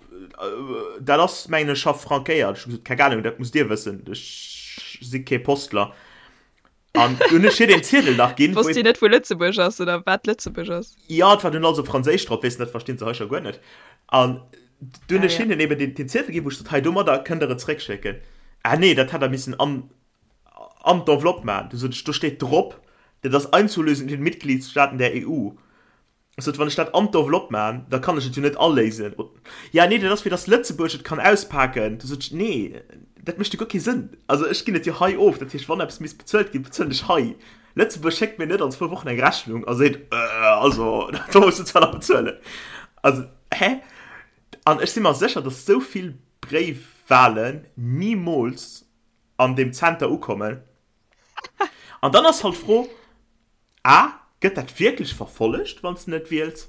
dat ass, mengen ech, scho frankéiert. Ech hu gesot, keng Ahnung, dat musst Dir wëssen, ech si kee Postler. An dunn hunn ech hir deen Ziedel nach ginn. Wosst si net, wou Lëtzebuerg ass oder wat Lëtzebuerg ass? Jo, et war dunn alles op Franséisch drop, weess de, dat verstinn se hei scho guer net. An dunn hunn ech hinnen eben deen, deen Ziedel ginn, wou ech sot, hei, domadder kënnt Der et zréckschécken. Ah nee, dat hätt Der missen an, an d'Enveloppe maachen. Du sot ech, do steet drop, dat ass einzulösen in den Mitgliedstaaten der EU. Ech sot, wann ech dat an d'Enveloppe maachen, da kann ech et jo net aléisen. Ja, nee, dat ass fir datt Lëtzebuerg et kann auspaken. Du sot ech, nee, dat mécht jo guer kee Sënn. Also ech ginn et jo hei of. Dat heescht, wann eppes misst bezuelt ginn, bezuelen ech hei. Lëtzebuerg schéckt mir net an zwou Wochen eng Rechnung a seet, also do muss de zwar nach bezuelen. Also, hä? An ech si mer sécher, datt esou vill Bréifwalen nimools an deem Zenter ukommen. An dann ass halt d'Fro, A, Gëtt dat wierklech verfollegt, wann s de net wiels?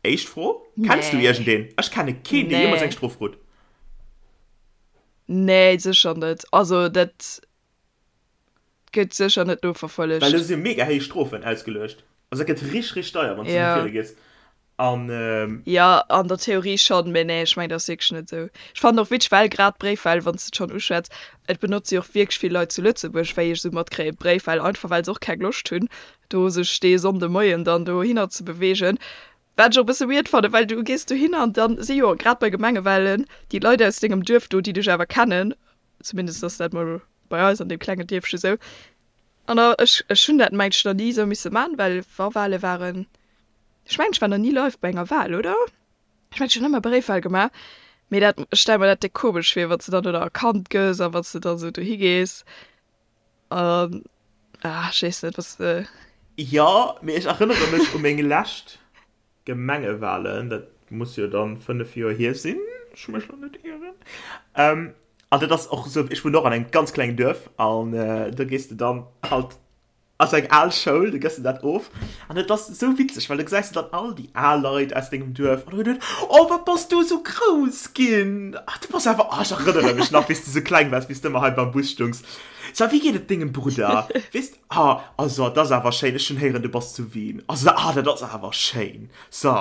Éischt Fro, Kenns du iergendeen? Ech kenne keen, dee jeemools eng Strof krut. Nee, sécher net. Also dat gëtt sécher net noverfollegt. Well do si mega héich Strofen ausgeluecht. Also dat gëtt richteg, richteg deier, wann s de net wiele gees. An. Jo, an der Theorie schonn, mee nee, ech mengen, dat ass wierklech net esou. Ech fannen och witzeg, well grad d'Bréifwahl, wann s de et schonn uschwätz, et benotze jo och wierklech vill Leit zu Lëtzebuerg, wéi ech esou matkréien, d'Bréifwahl, einfach well se och keng Loscht hunn, do sech dee Sonndemoien dann dohinner ze beweegen. Wat ech och e bësse weird fannen, well du gees dohinner an dann si jo grad bei Gemengewahlen déi Leit aus dengem Duerf do, déi dech awer kennen, zumindest ass dat mol bei eis an deem klengen Dierfche sou. An da, ech, ech hunn dat mengt ech nach ni esou misse man, well wa Wahle waren, Ech mengen ech war nach ni live bei enger Wahl, oder? Ech mengen ech hunn ëmmer Bréifwahl gemaach, mee dat, ech stelle mer dat déck komesch vir, wann s de dann do nach erkannt gëss a wann s de dann esou dohi gees an, ah, ech weess net, was de. Jo, mee ech erënnere mech u meng lescht Gemengewahlen, dat muss jo dann 5 Joer hier sinn, ech mech lo net ieren. An dat ass och esou, ech wunnen och an engem ganz klengen Duerf an do gees de dann halt Ass eng al Schoul, du gëss de dat of an et ass esou witzeg, well du gesäis de dann all déi al Leit aus dengem Duerf an du huet oh wat bass du esou grouss ginn, ach du bass awer, oh ech erënnere mech nach wéi s du esou kleng waars, wéi s du ëmmer hei beim Bus stungs, so wéi geet et dengem Brudder, weess de, ah also dat ass awer schéin, ech hunn héieren du bass zu Wien, also ah dat ass awer schéin, so.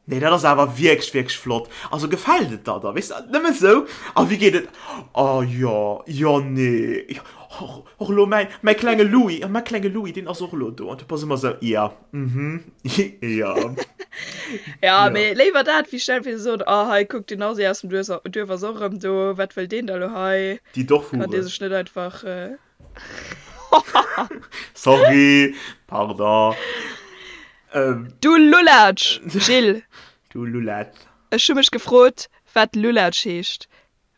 Nee, dat ass awer wierklech, wierklech flott. Also gefält et der da, weess de, nëmme sou. A wéi geet et? Oh jo, jo, nee, jo, och, och elo mäin, mäi klenge Louis, jo, mäi klenge Louis, deen ass och elo do. An du bass ëmmer sou, ja, mhm, jo. Ja, mee léiwer dat, wéi stell fir ze soen, oh hei, kuck, den Asi aus dem Duerf, Duerf ass och erëm do, wat wëll deen da lo hei? Déi Dorfhure. Kann dee sech net einfach. Sorry, pardon. Ähm, du Lulatsch, Gilles. Du Lulatsch. Ech hu mech gefrot, wat Lulatsch heescht,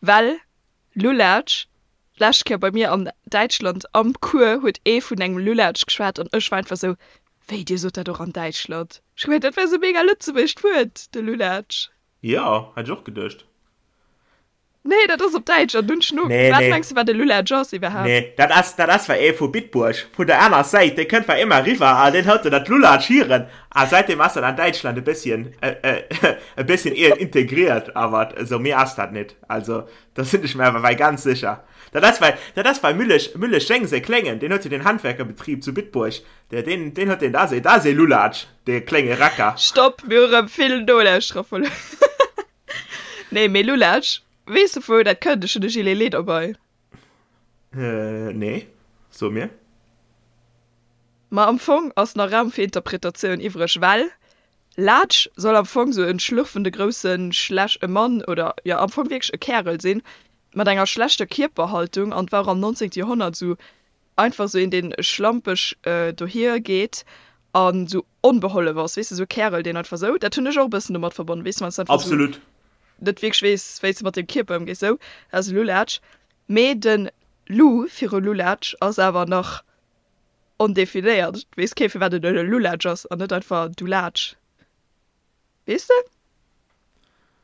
well Lulatsch, d'lescht Kéier bei mir an Däitschland am Cours huet ee vun engem Lulatsch geschwat an ech war einfach sou, wéi, dir sot dat och an Däitschland? Ech hu gemengt, dat wär sou mega lëtzebuergescht Wuert, de Lulatsch. Jo, hätt ech och geduecht. Nee, dat ass op Däitsch an dunn schno. Nee, Wat nee. mengs du, wat e Lulatsch ass iwwerhaapt? Nee, dat ass, dat ass war ee vu Bitburg, vun der aner Säit, dee kënnt war ëmmer eriwwer a deen huet dat Lulatsch hieren a säitdeem ass dat an Däitschland e bësschen, e bësschen integriert, awer esou méi ass dat net. Also do sinn ech mir awer wei ganz sécher. Dat ass wei, dat ass wei Müllesch, Müllesch Jeng säi Kléngen, deen huet jo den Handwerkerbetrib zu Bitburg, dee, deen, deen huet deen, dat ass ee, dat ass ee Lulatsch, dee klénge Racker. Stopp, mir hu rëm vill Nolauschterer verluer. Nee, mee Lulatsch, weess de vu wou dat kënnt? Ech hunn de Gilet Lee derbei. Nee, so mir. Ma am Fong ass nach Raum fir Interpretatioun iwwreg, well Laatsch soll am Fong sou en schlürfende grousse schlech e Mann oder jo am Fong wierklech e Kärel sinn, mat enger schlechter Kierperhaltung an war och am 19. Joerhonnert sou einfach sou een deen schlampeg dohier geet an sou onbehollef ass, weess de, sou e Kärel deen einfach sou, dat hunn ech och e bëssen domat verbonnen, weess de, wann s de einfach sou Absolut. net wierklech weess wéi s de mat dengem Kierper ëmgees, sou, dat ass e Lulatsch. Mee de Lu viru Lulatsch ass awer nach ondefinéiert, et weess kee firwat et e Lulatsch ass an net einfach du Laatsch, weess de?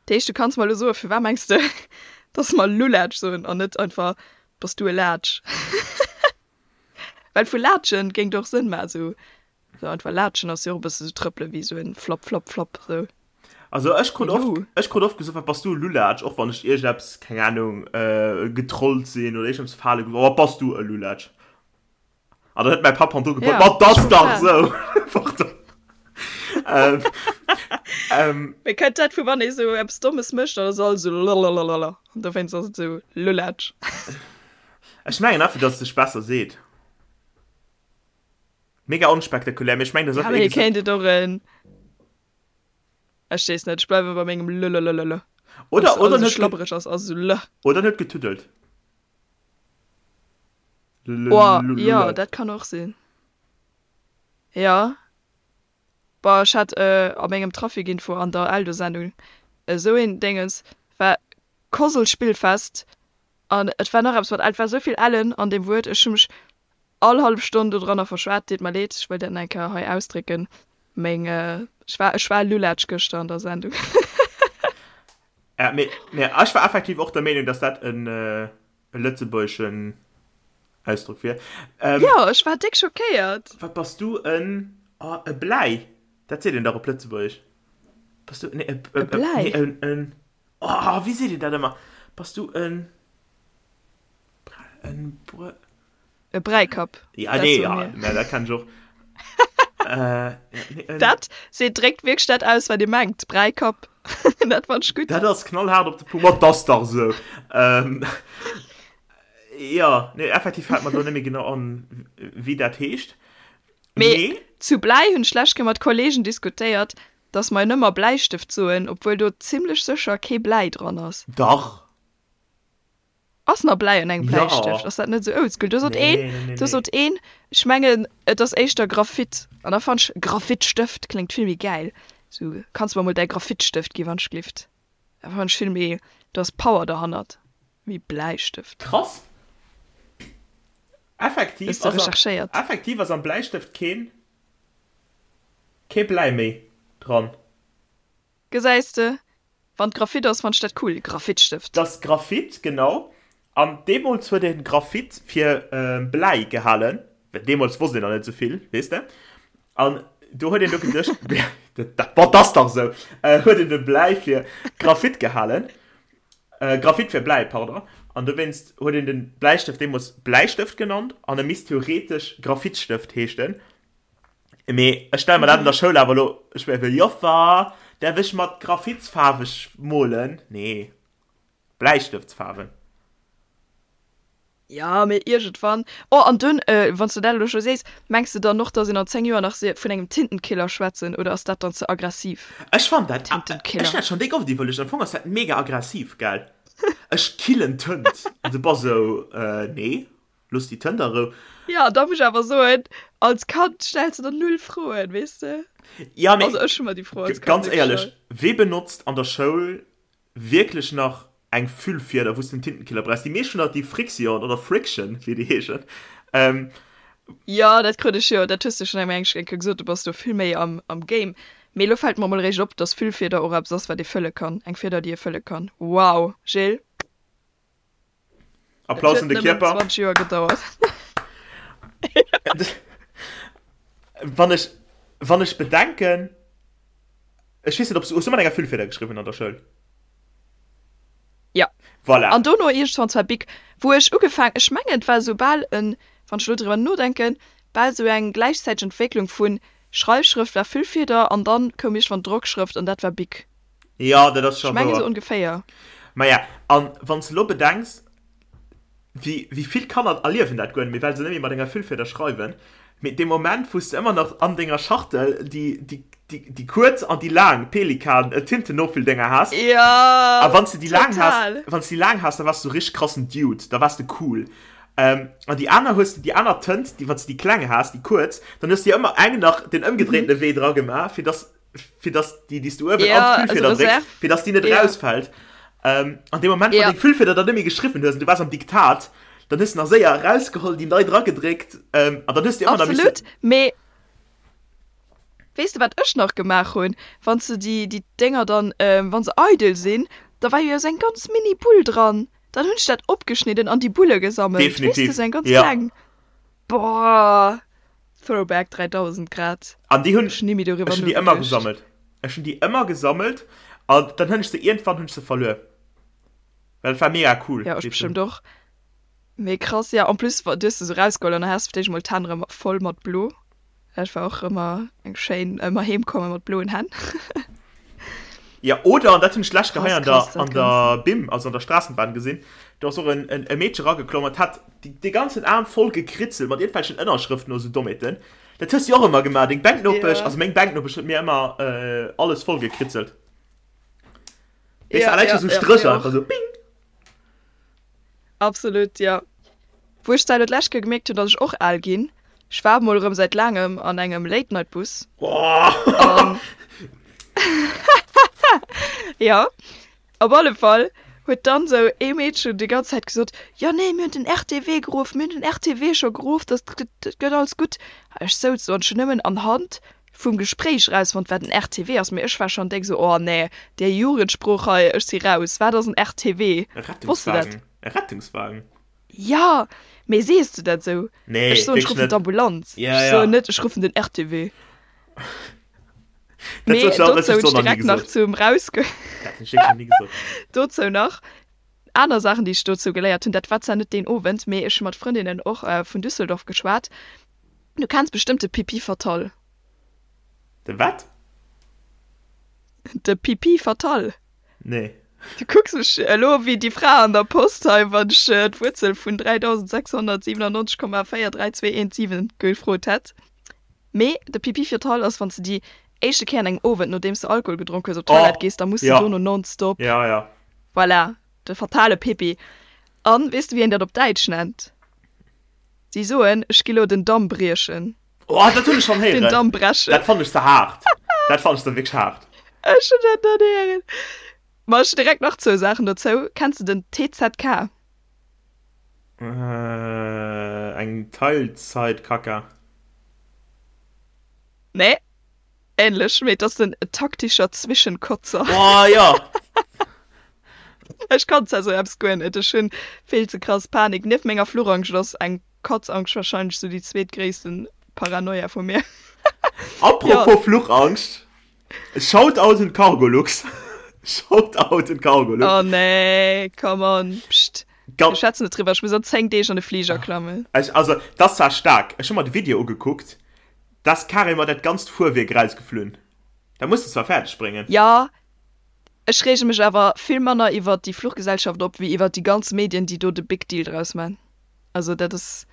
Dat heescht du kanns mer elo soen, firwat mengs de dass mer Lulatsch soen an net einfach bass du e Laatsch? Well vu Laatschen géing et och Sënn maachen, sou sou einfach Laatschen ass jo och e bësse sou trëppele wéi sou en Flapp flapp flapp sou. Also ech krut Mee oft, Lu. ech krut oft gesot, wat bass du e Lulatsch, och wann ech iergendeppes, keng Ahnung, getrollt sinn oder iergendeppes fale gelooss, oh wat bass du e Lulatsch. An dann huet mäi Papp hannendru gebrüllt, Ja, Ma 't ass ech dach comprend. sou! Pardon. Ähm, ähm. Mee kënnt dat vu wann ee sou eppes Dommes mécht, dann ass alles sou lalalala an dowéinst ass et sou Lulatsch. Ech mengen einfach, dass et sech besser seet. Mega onspektakulär, mee ech mengen, dass Ja, einfach mee ee gesot. kéint et och en, ech weess net, ech bleiwe bei mengem lëlëlëlë. Wann Oder, s oder alles en sou huet ge, schlabbereg ass, ass et sou lë. oder en huet getuddelt. Oh, jo, Lullet. dat kann och sinn. Jo. Boah, ech hat a mengem Trafikinfo an der Eldo-Sendung esou een Déngens, war Kosel-Spillfest an et war nach eppes mat L, et war esou vill Ellen an deem Wuert, ech hu mech all hallef Stonn dodranner verschwat, deet mer leed, ech wëll dat nach eng Kéier hei ausdrécken, meng, ech war, ech war Lulatsch gëschter an der Sendung. Ja, mee, mee ech war effektiv och der Meenung, dass dat en e lëtzebuergeschen Ausdrock wier. Ähm, Jo, ech war déck schockéiert. Wat bass du en, oh, e Bläi, dat seet een dach op Lëtzebuergesch. Bass du, nee, e, e, E Bläi? nee, en, en, oh, wéi seet een dat ëmmer? Bass du en, en Brö. E Bräikapp, Ja, dat nee, soe ja, mir. mä dat kenn ech och. Äh, nee, en. Dat seet, dréckt wierklech dat aus, wat ee mengt, Bräikapp. Dat fand ech gutt. Dat ass knallhaart op de Punkt. Ma 't ass dach esou. Ähm, ja, nee, effektiv fält mer do net méi genau an, wéi dat heescht. Mee Mee. zu Bläi hunn ech d'lescht Kéier mat Kollegen diskutéiert, dass mer nëmmer Bläistëft soen, obwuel do zimlech sécher kee Bläi dran ass. Dach. Ass nach Bläi an engem Bläistëft? Jo. Ass dat net esou oldschool? Do sot een, Nee, nee, nee, do nee. sot een, ech mengen et ass éischter Graphit. An da fannt ech Graphitstëft kléngt vill méi gäil. Sou, kanns mer mol däi Graphitstëft gi wann ech glift. Dat fannt ech vill méi, do ass Power derhannert wéi Bläistëft. Krass. Effektiv Hues de ass am, recherchéiert? effektiv ass am Bläistëft keen, kee Bläi méi dran. Gesäis de, wann et Graphit ass, fannt ech dat cool, Graphitstëft. T'ass Graphit, genau. An deemools huet een Graphit fir Bläi gehalen, well deemools wosst een nach net esou vill, weess de. An do huet een do geduecht, dat, ma t'ass dach esou, huet een de Bläi fir Graphit gehalen, Graphit fir Bläi, pardon. An dowéinst huet een de Bläistëft deemools Bläistëft genannt an e misst theoretesch Graphitstëft heeschten. Mee ech stelle mer dat an der Schoul awer elo schwéier vir, Joffer, däerf ech mat Graphitsfaarwe molen? Nee, Bläistëftsfaarwen. Jo, mee iergendwann. Oh, an dunn, wann s de dat elo scho sees, mengs de dann och, dass een an 10 Joer nach vun engem Tintenkiller schwätzen, oder ass dat dann ze aggressiv? Ech fannen dat, ech Tintenkiller. hunn dat schonn déck oft iwwerluecht, am Fong ass dat mega aggressiv, gell? Ech killen Tënt. An du bass esou, Nee. Looss déi Tënt a Rou. Jo, da muss ech awer soen, als Kand stells de der null Froen, weess de? Ja, mee Also ech hu mer déi Fro als Kand ganz net éierlech, gestallt. wee benotzt an der Schoul wierklech nach eng Füllfieder, wou s de den Tintenkiller brauchs? Déi meescht hunn nach déi Frixion oder Friction, wéi déi heeschen. Jo, dat krut ech jo, dat hues de schonn eng eng Kéier gesot, du bass do vill méi am am Game. Mee elo fält mer emol eréischt op, dass Füllfieder och eppes ass, wat ee fëlle kann, eng Fieder, déi ee fëlle kann. Wow, Jill! Applaus un de Kierper. 20 Joer gedauert. Wann ech, wann ech bedenken, ech weess net, ob s du, hues du mat enger Füllfieder geschriwwen an der Schoul? Ja. Voilà. An dono iergendwann zwar Bic, wou ech ugefaang, ech mengen et war esou bal en, wann ech elo driwwer nodenken, bal esou eng gläichzäiteg Entwécklung vun Schreifschrëft war Füllfieder an dann koum iergendwann Drockschrëft an dat war Bic. Jo, dat ass scho Ech mengen wouer. esou ongeféier. Maja, an wann s de elo bedenks, wéi, wéi vill Kanner erliewen dat guer net méi, well se net méi mat enger Füllfieder schreiwen, mee dee Moment, wou s de ëmmer nach an denger Schachtel déi, déi, déi, déi kuerz an déi laang Pelikan-Tintenoffülldinger has, Jo, a wann s de déi laang has, total. wann s de déi laang has, da waars de sou richteg krassen Dude, da waars de cool. An déi aner hues de, déi aner Tënt, déi, wann s de déi kleng has, déi kuerz, dann hues de jo ëmmer eng nach den ëmgedréintene Wee dra gemaach, fir dass fir dass déi, déi s du uewen Ja, an d'Füllfieder also drécks, Reserve. fir dass déi net Ja. rausfält. Ähm, an deem Moment, wann Ja. deng Füllfieder dann net méi geschriwwen hues an du waars am Diktat, dann hues du nach séier erausgeholl, déi nei dragedréckt, ähm, an dann hues du ëmmer nach Absolut, missen. mee weess de wat ech nach gemaach hunn? Wann s de déi, déi Dénger dann, ähm, wa se eidel sinn, da war jo esou eng ganz mini Bull dran. Dann hunn ech dat opgeschnidden an déi Bulle gesammelt. Weess de, Definitiv, esou eng ganz ja. kleng. Boah, Throwback 3000 grad. An déi hunn, Ech hunn ni méi doriwwer ech hunn déi ëmmer nogeduecht. gesammelt. Ech hunn déi ëmmer gesammelt an dann hunn ech se, iergendwann hunn ech se verluer. Well et war mega cool, Ja, ech déi ze hunn. bestëmmt och. Mee krass, ja, en plus du hues se sou rausgeholl an da has de fir d'éischt emol d'Hänn rëm voll mat blo. Dat war och ëmmer eng schéin, ëmmer heem komme mat bloen Hänn. Ja, oder, an dat hunn ech d'lescht Kéier Krass, hei an der, krass, dat an der Bim, also an der Straßenbahn gesinn, do ass och en, en, e Meedche rageklomm an hat déi, dee ganzen Aarm voll gekritzelt mat iergendwelchen Ënnerschrëften oder sou Dommheeten. Dat hues du jo och ëmmer gemaach, deng Bänknopesch, Ja. also meng Bänknopesch huet mir ëmmer äh, alles voll gekritzelt. Weess du, Ja, allein ja, scho sou ja, Strécher mir einfach och. sou bing. Absolut, jo. Wou ech zwar elo d'lescht Kéier gemierkt hunn, datt ech och al ginn, ech war mol erëm säit laangem an engem Late-Night-Bus an jo, op alle Fall huet dann esou ee Meedchen déi ganz Zäit gesot, jo nee, mir hunn den RTW geruff, mir hunn den RTW scho geruff, dat gëtt alles gutt. A ech souz do an ech hunn nëmmen anhand vum Gespréich erausfonnt, wat en RTW ass, mee ech war schonn déck esou, oh nee, déi Jugendsprooch hei, ech si raus, wat ass en RTW? E Wosst de dat? Rettungswagen. E Rettungswagen. Jo, mee sees du dat esou? Nee, Ech soen, ech wierklech ruffen net. d'Ambulanz. Ja, Ech ja. soen net, ech ruffen den RTW. Dat Mee huet ech dozou och hunn ech nach ni direkt nach gesot. zum Rausgo. Dat hunn ech wierklech nach ni gesot. Dozou nach aner Saachen, déi ech dozou geléiert hunn. Dat war zwar net deen Owend, mee ech hu mat Frëndinnen och vun Düsseldorf geschwat. Du kenns bestëmmt de Pipi Fatal. De wat? De Pipi Fatal. Nee. Du kucks mech elo wéi déi Fra an der Post hei, wann ech d'Wuerzel vun 3697,43217 gefrot hätt. Mee de Pipi Fatal ass, wann s de déi éischte Kéier an engem Owend, nodeems de Alkohol gedronk hues, op d'Toilette Oh, gees, da muss de ja. dono nonstop. Ja, ja. Voilà, de fatale Pipi. An weess de, wéi een dat op Däitsch nennt? Si soen, ech gi lo den Damm briechen. Oh, dat hunn ech schonn Den héieren. Damm brechen. Dat fannen ech ze haart. Dat fannen ech da wierklech haart. Ech hunn dat net héieren. Ma ech hunn direkt nach zwou Saachen dozou. Kenns de den TZK? Äh, eng Teilzeitkacka. Nee, ähnlech, mee et ass den taktischer Zwischenkotzer. Oh, jo! Ech kann zwar sou eppes guer net, ech hunn vill ze krass Panik. Nieft menger Fluchangscht ass eng Katzangscht wahrscheinlech sou déi zweetgréissten Paranoia vu mir. Apropos Fluchangscht, Shoutout un Cargolux. Shoutout un Cargolux. Oh nee, come on, pscht. Mir schwätzen net driwwer, ech muss an 10 Deeg an de Fliger klammen. Ech, also, dat ass zwar staark, ech hu mer de Video ugekuckt, da ass carrément dat ganzt Fuerwierk erausgeflunn. Dat muss de zwar fäerdeg bréngen. Jo, Ech reege mech awer vill manner iwwert déi Fluchgesellschaft op, wéi iwwert déi ganz Medien, déi do de big deal draus man. Also dat ass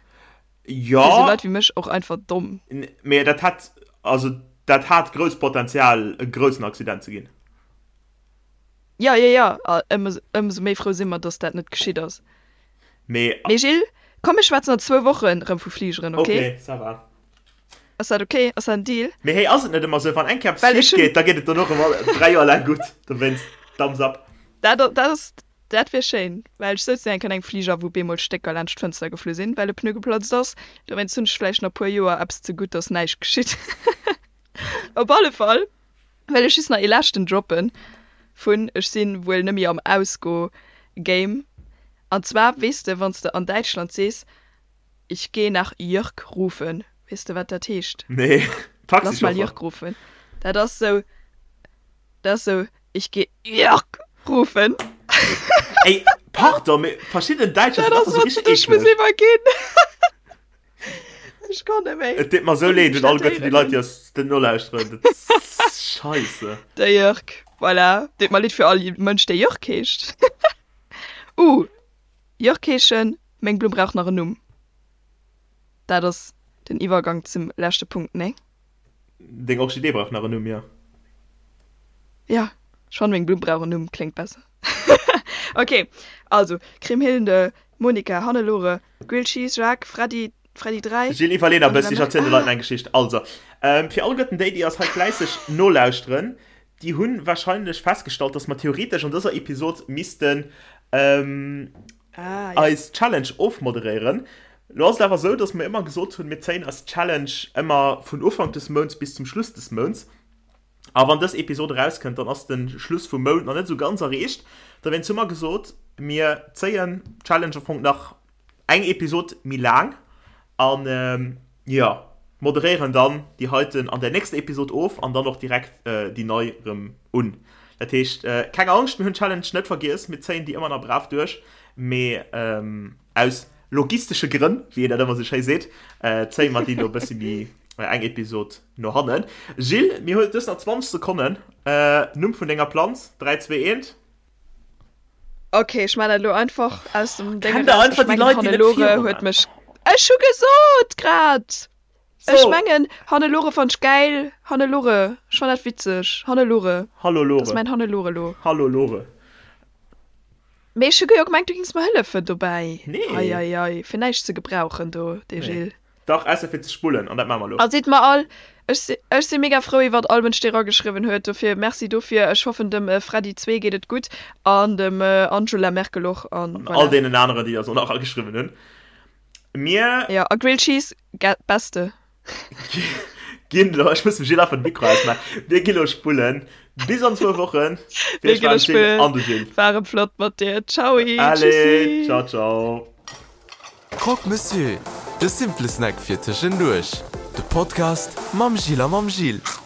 fir esou Leit wéi mech och einfach domm. Mee dat hätt, also dat hat grousst Potenzial e groussen Accident ze ginn. Jo, jo, jo, a ëmsou méi frou si mer, datt dat net geschitt ass. Mee. Mee Gilles, komm mir schwätzen an zwou Wochen erëm vu Fligeren, ok? Ok, ça va. Ass dat ok? Ass dat en Deal? Mee hey, ass et net ëmmer sou, wann eng Kéier eppes Well ech schief hunn. geet, da geet et dono erëm all 3 Joer laang gutt. Dowéinst, Thumbs up. Dat, dat ass, dat wier schéin, well ech souz eng Kéier an engem Fliger, wou bemol Stécker laanscht d'Fënster geflu sinn, well e Pneu geplatzt ass. Dowéinst hunn ech vläicht nach e puer Joer eppes ze gutt, dass näischt geschitt. Op alle Fall well ech just nach ee leschten droppen vun ech si wuel nëmme am Ausgo-Game. An zwar, weess de, wann s de an Däitschland sees, Ich geh nach Jörg rufen, weess de wat dat heescht? Nee, Lass mal Jörg rufen. Dat ass sou, dat ass sou, Ich geh Jörg rufen. Ey, pardon, mee verschidden Däitscher sinn einfach sou richteg eekleg. Dat ass wat ech muss iwwerginn. Ech kann net méi. Et deet mer sou leed un alleguerten déi Leit, déi eis den nolauschteren. Dat ass scheisse. De Jörg, voilà. Deet mer leed fir all Mënsch, dee Jörg heescht. Uh, Jörg heeschen, meng Blumm brauch nach en Numm. Dat ass den Iwwergang zum leschte Punkt, nee? Deng Orchidee brauch nach en Numm, jo. Jo, ech fannen meng Blumm brauch en Numm, kléngt besser. Ok, also, Kriemhilde, Monika, Hannelore, Grilled Cheese, Jacques, Freddy, Freddy 3. Gilles, iwwerlee der e bëssi, ech erzielen de Leit eng Geschicht. Also, fir alleguerten déi, déi eis hei fläisseg nolauschteren, déi hu warscheinlech festgestallt, dass mer theoretesch an dëser Episod missten eis Challenge ofmoderéieren. Lo ass et awer esou, dass mer ëmmer gesot hunn, mir zéien eis Challenge ëmmer vun Ufank des Mounts bis zum Schluss des Mounts. A wann dës Episod erauskënnt, dann ass de Schluss vum Mount nach net esou ganz erreecht. Dowéinst hu mer gesot, mir zéien d'Challenge am Fong nach eng Episod méi laang an jo, moderéieren dann déi heiten an der nächster Episod of an dann och direkt déi nei erëm un. Dat heescht, keng Angscht, mir hunn d'Challenge net vergiess, mir zéien déi ëmmer nach brav duerch, mee aus logistesche Grënn, wéi een dat ëmmer esou schéi seet, zéie mer déi elo e bëssi méi eng Episod no hannen. Gilles, mir hunn dës nach 20 Sekonnen. Numm vun denger Planz, 3, 2, 1. Ok, ech man dat elo einfach aus dem Ding Kennt der einfach déi Leit, déi net Hannelore huet mech. Ech hu gesot grad! So. Ech mengen Hannelore fannt ech gäil. Hannelore, ech fann dat witzeg. Hannelore. Hallo Lore. Dat ass mäin Hannelore lo. Hallo Lore. Mee ech hu jo gemengt du gings mer hëllefen dobäi. Nee. Ei ei ei, fir näischt ze gebrauchen do, dee Gilles. Dach, ausser fir ze spullen, an dat maache mer elo. A sidd mer all, ech si, ech si mega frou iwwert all Mënsch dee rageschriwwen huet, dofir Merci dofir. Ech hoffen dem Freddy 2 geet et gutt an dem Angela Merkel och an An all voilà. deenen aneren déi eis och nach ageschriwwen hunn. Mir. Jo, a Grilled Cheese, ge, beste. Ginn elo, ech muss dem Gilles einfach de Mikro ausmaachen, mir gi lo spullen bis an zwou Wochen. Mir gi lo spullen. An de Gilles. War erëm flott mat dir. Tschaui, Allez, tschüssi. Ciao, ciao. Croque Monsieur, de simple Snack fir tëschenduerch. De Podcast mam Gilles a mam Gilles.